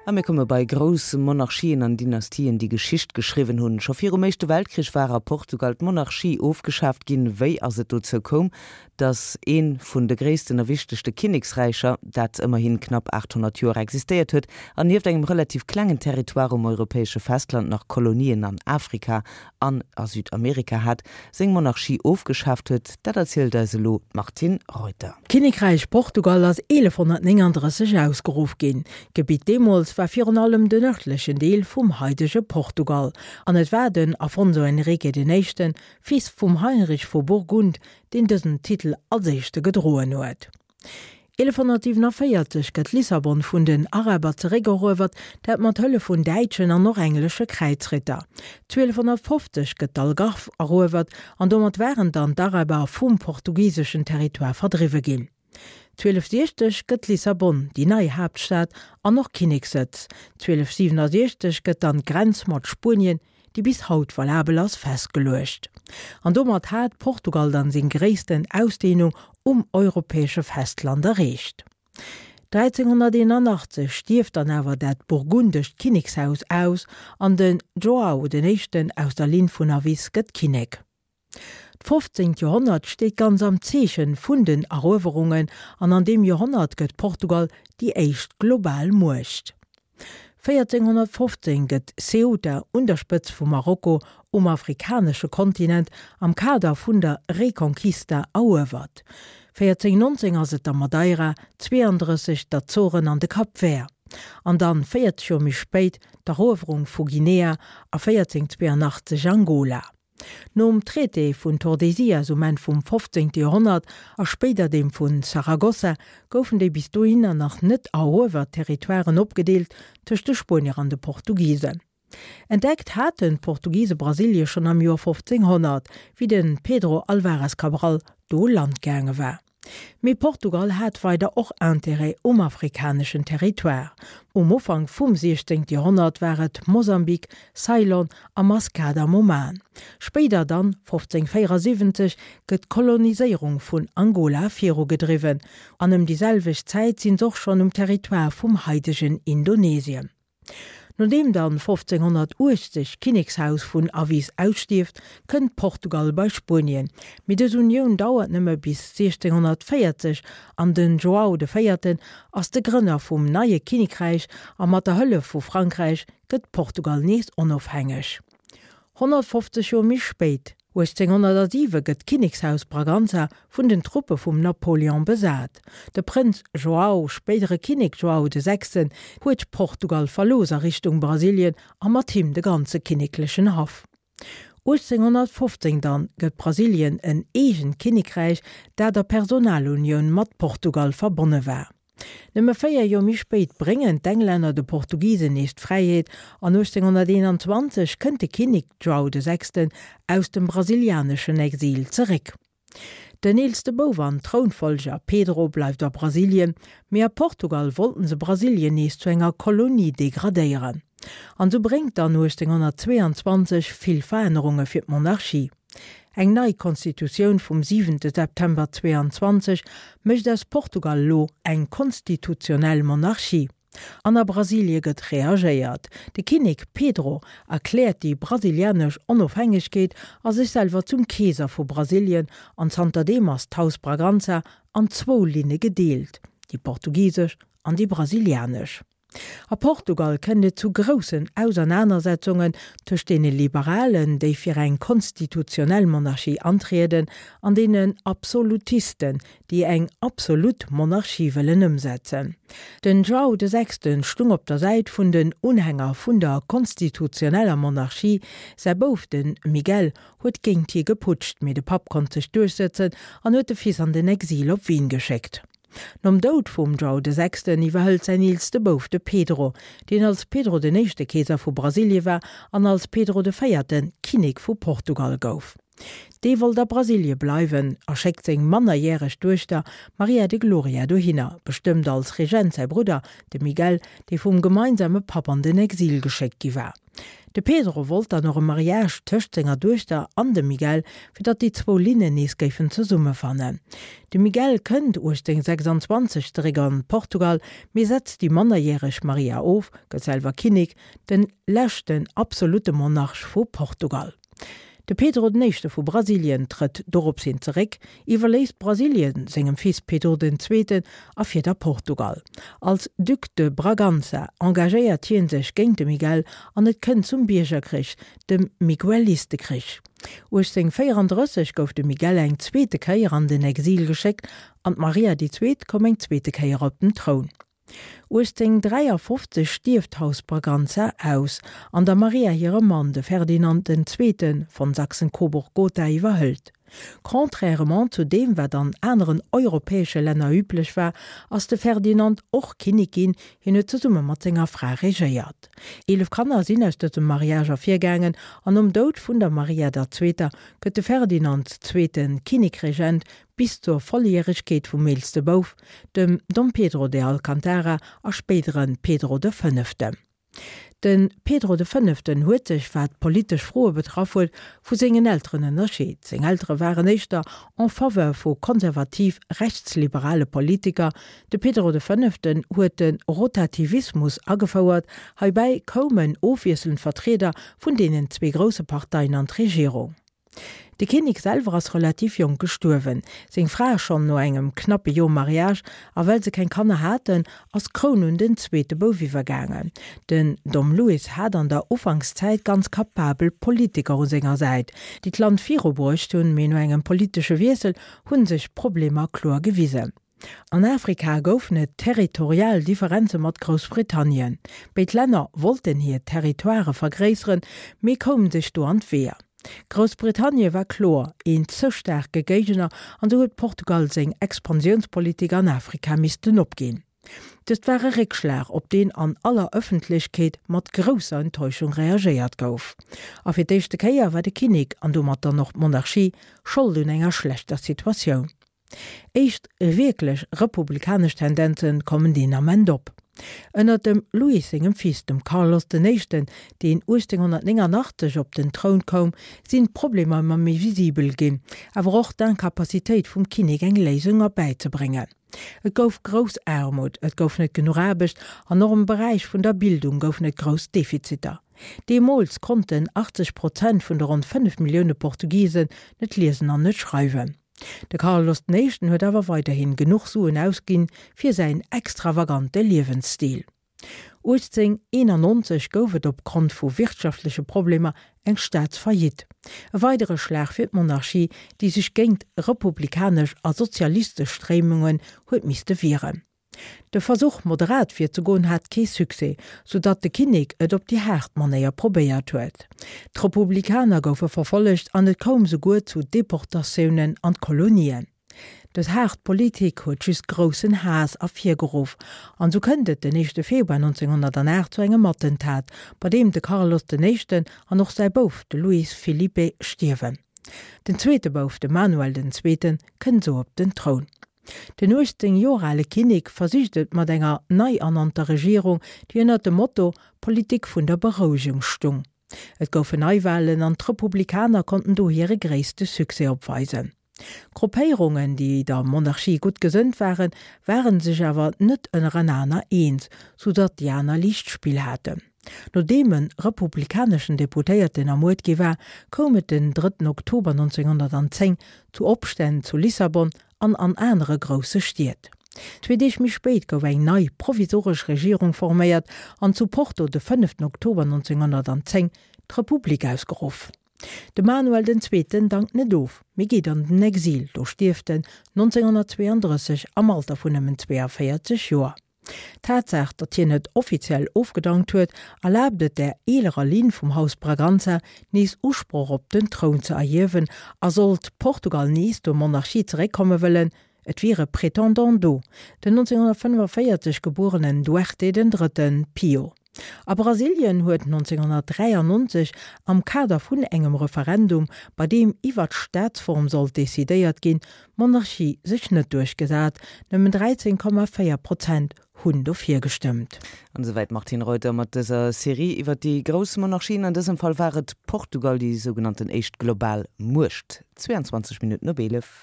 A mir komme bei grouss Monarchien an Dynastien, déi Geschicht geschriwwen hunn. Scho virum Éischte Weltkrich war a Portugal d'Monarchie ofgeschaaft ginn. Wéi ass et dozou koum, datt ee vun de gréissten a wichtegste Kinneksräicher, dat ëmmerhin knapp 800 Joer existéiert huet an nieft engem relativ klengen Territoire um europäesche Festland nach Kolonien an Afrika an a Südamerika hat, seng Monarchie ofgeschaaft huet, dat erzielt eis elo d'Martine Reuter. D'Kinnekräich Portugal ass 1139 ausgeruff ginn. D'Gebitt deemools war virun allem den nërdlechen Deel vum haidege Portugal, an et war den Afonso Henrique den Éischten, Fils vum Heinrich vu Burgund, deen dësen Titel als éischte gedroen huet. 1147 gëtt Lissabon vun den Araber zeréckeruewert, dat mat Hëllef vun däitschen an och englesche Kräizritter. 1250 gëtt d'Algarve eruewert an domat waren dann d'Araber vum portugiseschen Territoire verdriwwe ginn. 1260 gëtt Lissabon déi nei Haaptstad an och Kinnekssëtz. 1267 gëtt dann d'Grenz mat Spuenien déi bis haut valabel ass, festgeluecht. An domat hat Portugal dann seng gréissten Ausdehnung um europäesche Festland erreecht. 1381 stierft dann awer dat burgundescht Kinnekshaus aus an den João den Éischten aus der Linn vun Avis gëtt Kinnek. D'fofzéngt Joerhonnert steet ganz am Zeechen vun den Eruewerungen an an deem Joerhonnert gëtt Portugal déi éischt global Muecht. 1415 gëtt Ceuta un der Spëtz vu Marokko um afrikanesche Kontinent am Kader vun der Reconquista eruewert. 1419 ass et da Madeira, 32 d'Azoren an de Cap Vert. An dann 40 Joer méi spéit d'Eruewerung vu Guinea a 1482 Angola. Nom Traité vun Tordesillas um Enn vum 15. Joerhonnert a spéider deem vu Saragossa goufen déi bis dohinner nach net eruewert Territoiren opgedeelt tëscht de Spuenier an de Portugisen. Entdeckt haten d'Portugise Brasilie schonn am Joer 1500, wéi de Pedro Álvares Cabral do u Land gaange war. Mee Portugal hat weider och Intérêt um afrikaneschen Territoire. Um Ufank vum 16. Joerhonnert war et Mosambik, Ceylon a Maskat am Oman. Spéider dann, 1574, gëtt d'Koloniséierung vun Angola virugedriwwen, an ëm déi selwecht Zäit sinn s'och schonn um Territoire vum haidegen Indonesien. Nodeem dann 1580 d'Kinnekshaus vun Avis ausstierft, kënnt Portugal bei Spuenien, mee dës Unioun dauert nëmme bis 1640 an den João de Véierten ass de Grënner vum neie Kinnekräich a mat der Hëllef vu Frankräich gëtt Portugal nees onofhängeg. 150 Joer méi spéit, 1807, gëtt d'Kinnekshaus Braganza vun den Truppe vum Napoléon besat. De Prënz João, spéidere Kinnek João de Sechsten, huet Portugal verlooss a Richtung Brasilien a mat him de ganze kinneklechen Haff. 1815 dann gëtt Brasilien en eegent Kinnekräich, dat a Personalunioun mat Portugal verbonne war. Nëmme 4 Joer méi spéit bréngen d'Englänner de Portugisen nees d'Fräiheet an 1821 kënnt de Kinnek João de Sechsten aus dem brasilianeschen Exil zeréck. Den eelste Bouf an Trounfollger Pedro bleift a Brasilien, mee a Portugal wollten se Brasilien nees zu enger Kolonie degradéieren. An sou bréngt dann 1822 vill Verännerunge fir d'Monarchie. Eng nei Constitutioun vum siwente September 22 mécht aus Portugal elo eng konstitutionell Monarchie. An a Brasilie gëtt reagéiert. De Kinnek Pedro erkläert déi brasilianesch Onofhängegkeet a sech selwer zum Keeser vu Brasilien an zanterdeem ass d'Haus Braganza an zwou Linne gedeelt, déi portugisesch an déi brasilianesch. A Portugal kënnt et zu groussen Ausernanersetzungen tëscht deene Liberalen, déi fir eng konstitutionell Monarchie antrieden, an deenen Absolutisten, déi eng absolut Monarchie wëllen ëmsetzen. Den João de Sechsten stung op der Säit vun den Unhänger vun der konstitutioneller Monarchie, säi Bouf, de Miguel, huet géint hie geputscht, mee de Papp konnt sech duerchsëtzen an huet de Fils an den Exil op Wien geschéckt. Nom Doud vum João de Sechsten iwwerhëlt säin eelste Bouf, de Pedro, deen als Pedro den Éischte Keeser vu Brasilie war an als Pedro de Véierte Kinnek vu Portugal gouf. Dee wollt a Brasilie bleiwen a schéckt seng mannerjäreg Duechter Maria de Gloria dohinner, bestëmmt als Regent säi Brudder, de Miguel, dee vum gemeinsame Papp an den Exil geschéckt gi war. De Pedro wollt dann och e Mariage tëscht senger Duechter an dem Miguel, fir datt déi zwou Linnen nees géifen zesummefannen. De Miguel kënnt 1826 zeréck an Portugal, mee setzt déi mannerjäreg Maria of, gëtt selwer Kinnek, den leschten absolutte Monarch vu Portugal. De Pedro den Éischte vu Brasilien trëtt dorops hin zeréck, iwwerléisst Brasilien sengem Fils Pedro den Zweeten a fiert a Portugal. Als Duc de Bragança engagéiert hie sech géint de Miguel an et kënnt zum Biergerkrich, dem Miguelistekriich. 1834 gouf de Miguel eng zweete Kéier an den Exil geschéckt an d'Maria déi Zweet koum eng zweete Kéier op den Troun. 1853 stierft d'Haus Braganza aus, an der Maria hire Mann, de Ferdinand den Zweete von Sachsen-Coburg-Gotha iwwerhëlt. Contrairement zu deem wat an aneren europäesche Länner üblech war, ass de Ferdinand och Kinnek ginn, hien huet zesumme mat senger Fra regéiert. 11 Kanner sinn aus dësem Mariage ervirgaangen, an nom Doud vun der Maria der Zweeter gëtt de Ferdinand Zweete Kinnekregent bis zur Volljäregkeet vum eelste Bouf, dem Dom Pedro de Alcantara a spéidere Pedro de Fënneften. De Pedro de Fënneften huet sech, wat politesch Froe betraff huet, vu sengen Elteren ënnerscheet. Seng Eltere waren éischter en faveur vu konservativ-rechtsliberale Politiker. De Pedro de Fënneften huet de Rotativismus agefouert, heibäi koumen ofwiesselnd Vertrieder vun deenen zwee grousse Parteien an d'Regierung. De Kinnek selwer ass relativ jonk gestuerwen, seng Fra schonn no engem knappe Joer Mariage, a well se keng Kanner haten, ass d'Kroun un den zweete Bouf iwwergaangen. Den Dom Luis hat an der Ufankszäit ganz kapabel Politiker u senger Säit, déi d'Land virubruecht hunn, mee no engem politesche Wiessel hu sech d'Problemer kloer gewisen. An Afrika goufen et territorial Differenze mat Groussbritannien. Béid Länner wollten hir Territoirë vergréisseren, mee koumen sech do an d'Weeër. Groussbritannie war kloer een ze staarke Géigner an sou huet Portugal seng Expansiounspolitik an Afrika missten opginn. Dëst war e Réckschlag, op deen an aller Ëffentlechkeet mat grousser Enttäuschung reagéiert gouf. A fir d'éischte Kéier war de Kinnek, an domat dann och d'Monarchie, Schold un enger schlechter Situatioun. Éischt wierklech republikanesch Tendenze kommen deen Ament op. Ënner dem Luis sengem Fils, dem Carlos den Éischten, deen 1889 op den Troun koum, sinn d'Problemer ëmmer méi visibel ginn, awer och d'Incapacitéit vum Kinnek eng Léisung erbäizebréngen. Et gouf grouss Aarmut, et gouf net genuch Aarbecht an och am Beräich vun der Bildung goufen et grouss Defiziter. Deemools konnten 80 Prozent vun de ronn 5 Millioune Portugisen net liesen an net schreiwen. De Carlos den Éischten huet awer weiderhin genuch Suen ausginn fir säin extravagante Liewensstil. 1891 gouf et op Grond vu wirtschaftleche Problemer eng Staatsfaillite. E weidere Schlag fir d'Monarchie, déi sech géint republikanesch a sozialistesch Stréimungen huet misste wieren. De Versuch, moderat virzegoen, hat kee Succès, sou datt de Kinnek et op déi haart Manéier probéiert huet. D'Republikaner goufe verfollegt an et koum souguer zu Deportatiounen an d'Kolonien. Dës haart Politik huet just groussen Haass ervirgeruff an sou kënnt et den éischte Februar 1908 zu engem Attentat, bei deem de Carlos den Éischten an och säi Bouf, de Luis Filipe, stierwen. Den zweete Bouf, de Manuel den Zweeten, kënnt sou op den Troun. Den 18 Joer ale Kinnek versicht et mat enger nei ernannter Regierung, déi ënnert dem Motto Politik vun der Berouegung stung. Et goufen Neiwalen an d'Republikaner konnten do hire gréisste Succès opweisen. Gruppéierungen, déi der Monarchie gutt gesënnt waren, ware sech awer net ënnerenaner eens, sou datt déi aner liicht Spill haten. Nodeem e republikaneschen Deputéierten ermuert gi war, koum et den drëtten Oktober 1910 zu Opstänn zu Lissabon an an anere grousse Stied. Zwee Deeg méi spéit gouf eng nei provisoresch Regierung forméiert an zu Porto de fënneften Oktober 1910 d'Republik ausgeruff. De Manuel den Zweeten dankt net of, mee geet an den Exil, do stierft en 1932 am Alter vun nëmmen 42 Joer. D'Tatsaach, datt hien net offiziell ofgedankt huet, erlaabt et der eelerer Linn vum Haus Braganza, nees Usproch op den Troun ze erhiewen, a sollt Portugal nees zur Monarchie zeréckkomme wëllen, et wier e Prétendant do, den 1945 gebuerenen Duarte den Drëtten Pio. A Brasilien huet 1993 am Kader vun engem Referendum, bei deem iwwer d'Staatsform sollt decidéiert ginn, d'Monarchie sech net duerchgesat, nëmmen 13,4 Prozent Hunn dofir gestëmmt. An esouwäit d'Martine Reuter mat dëser Serie iwwer déi grouss Monarchien. An dësem Fall war et Portugal, déi sougenannten éischt global Muecht. 22 Minutten op 11.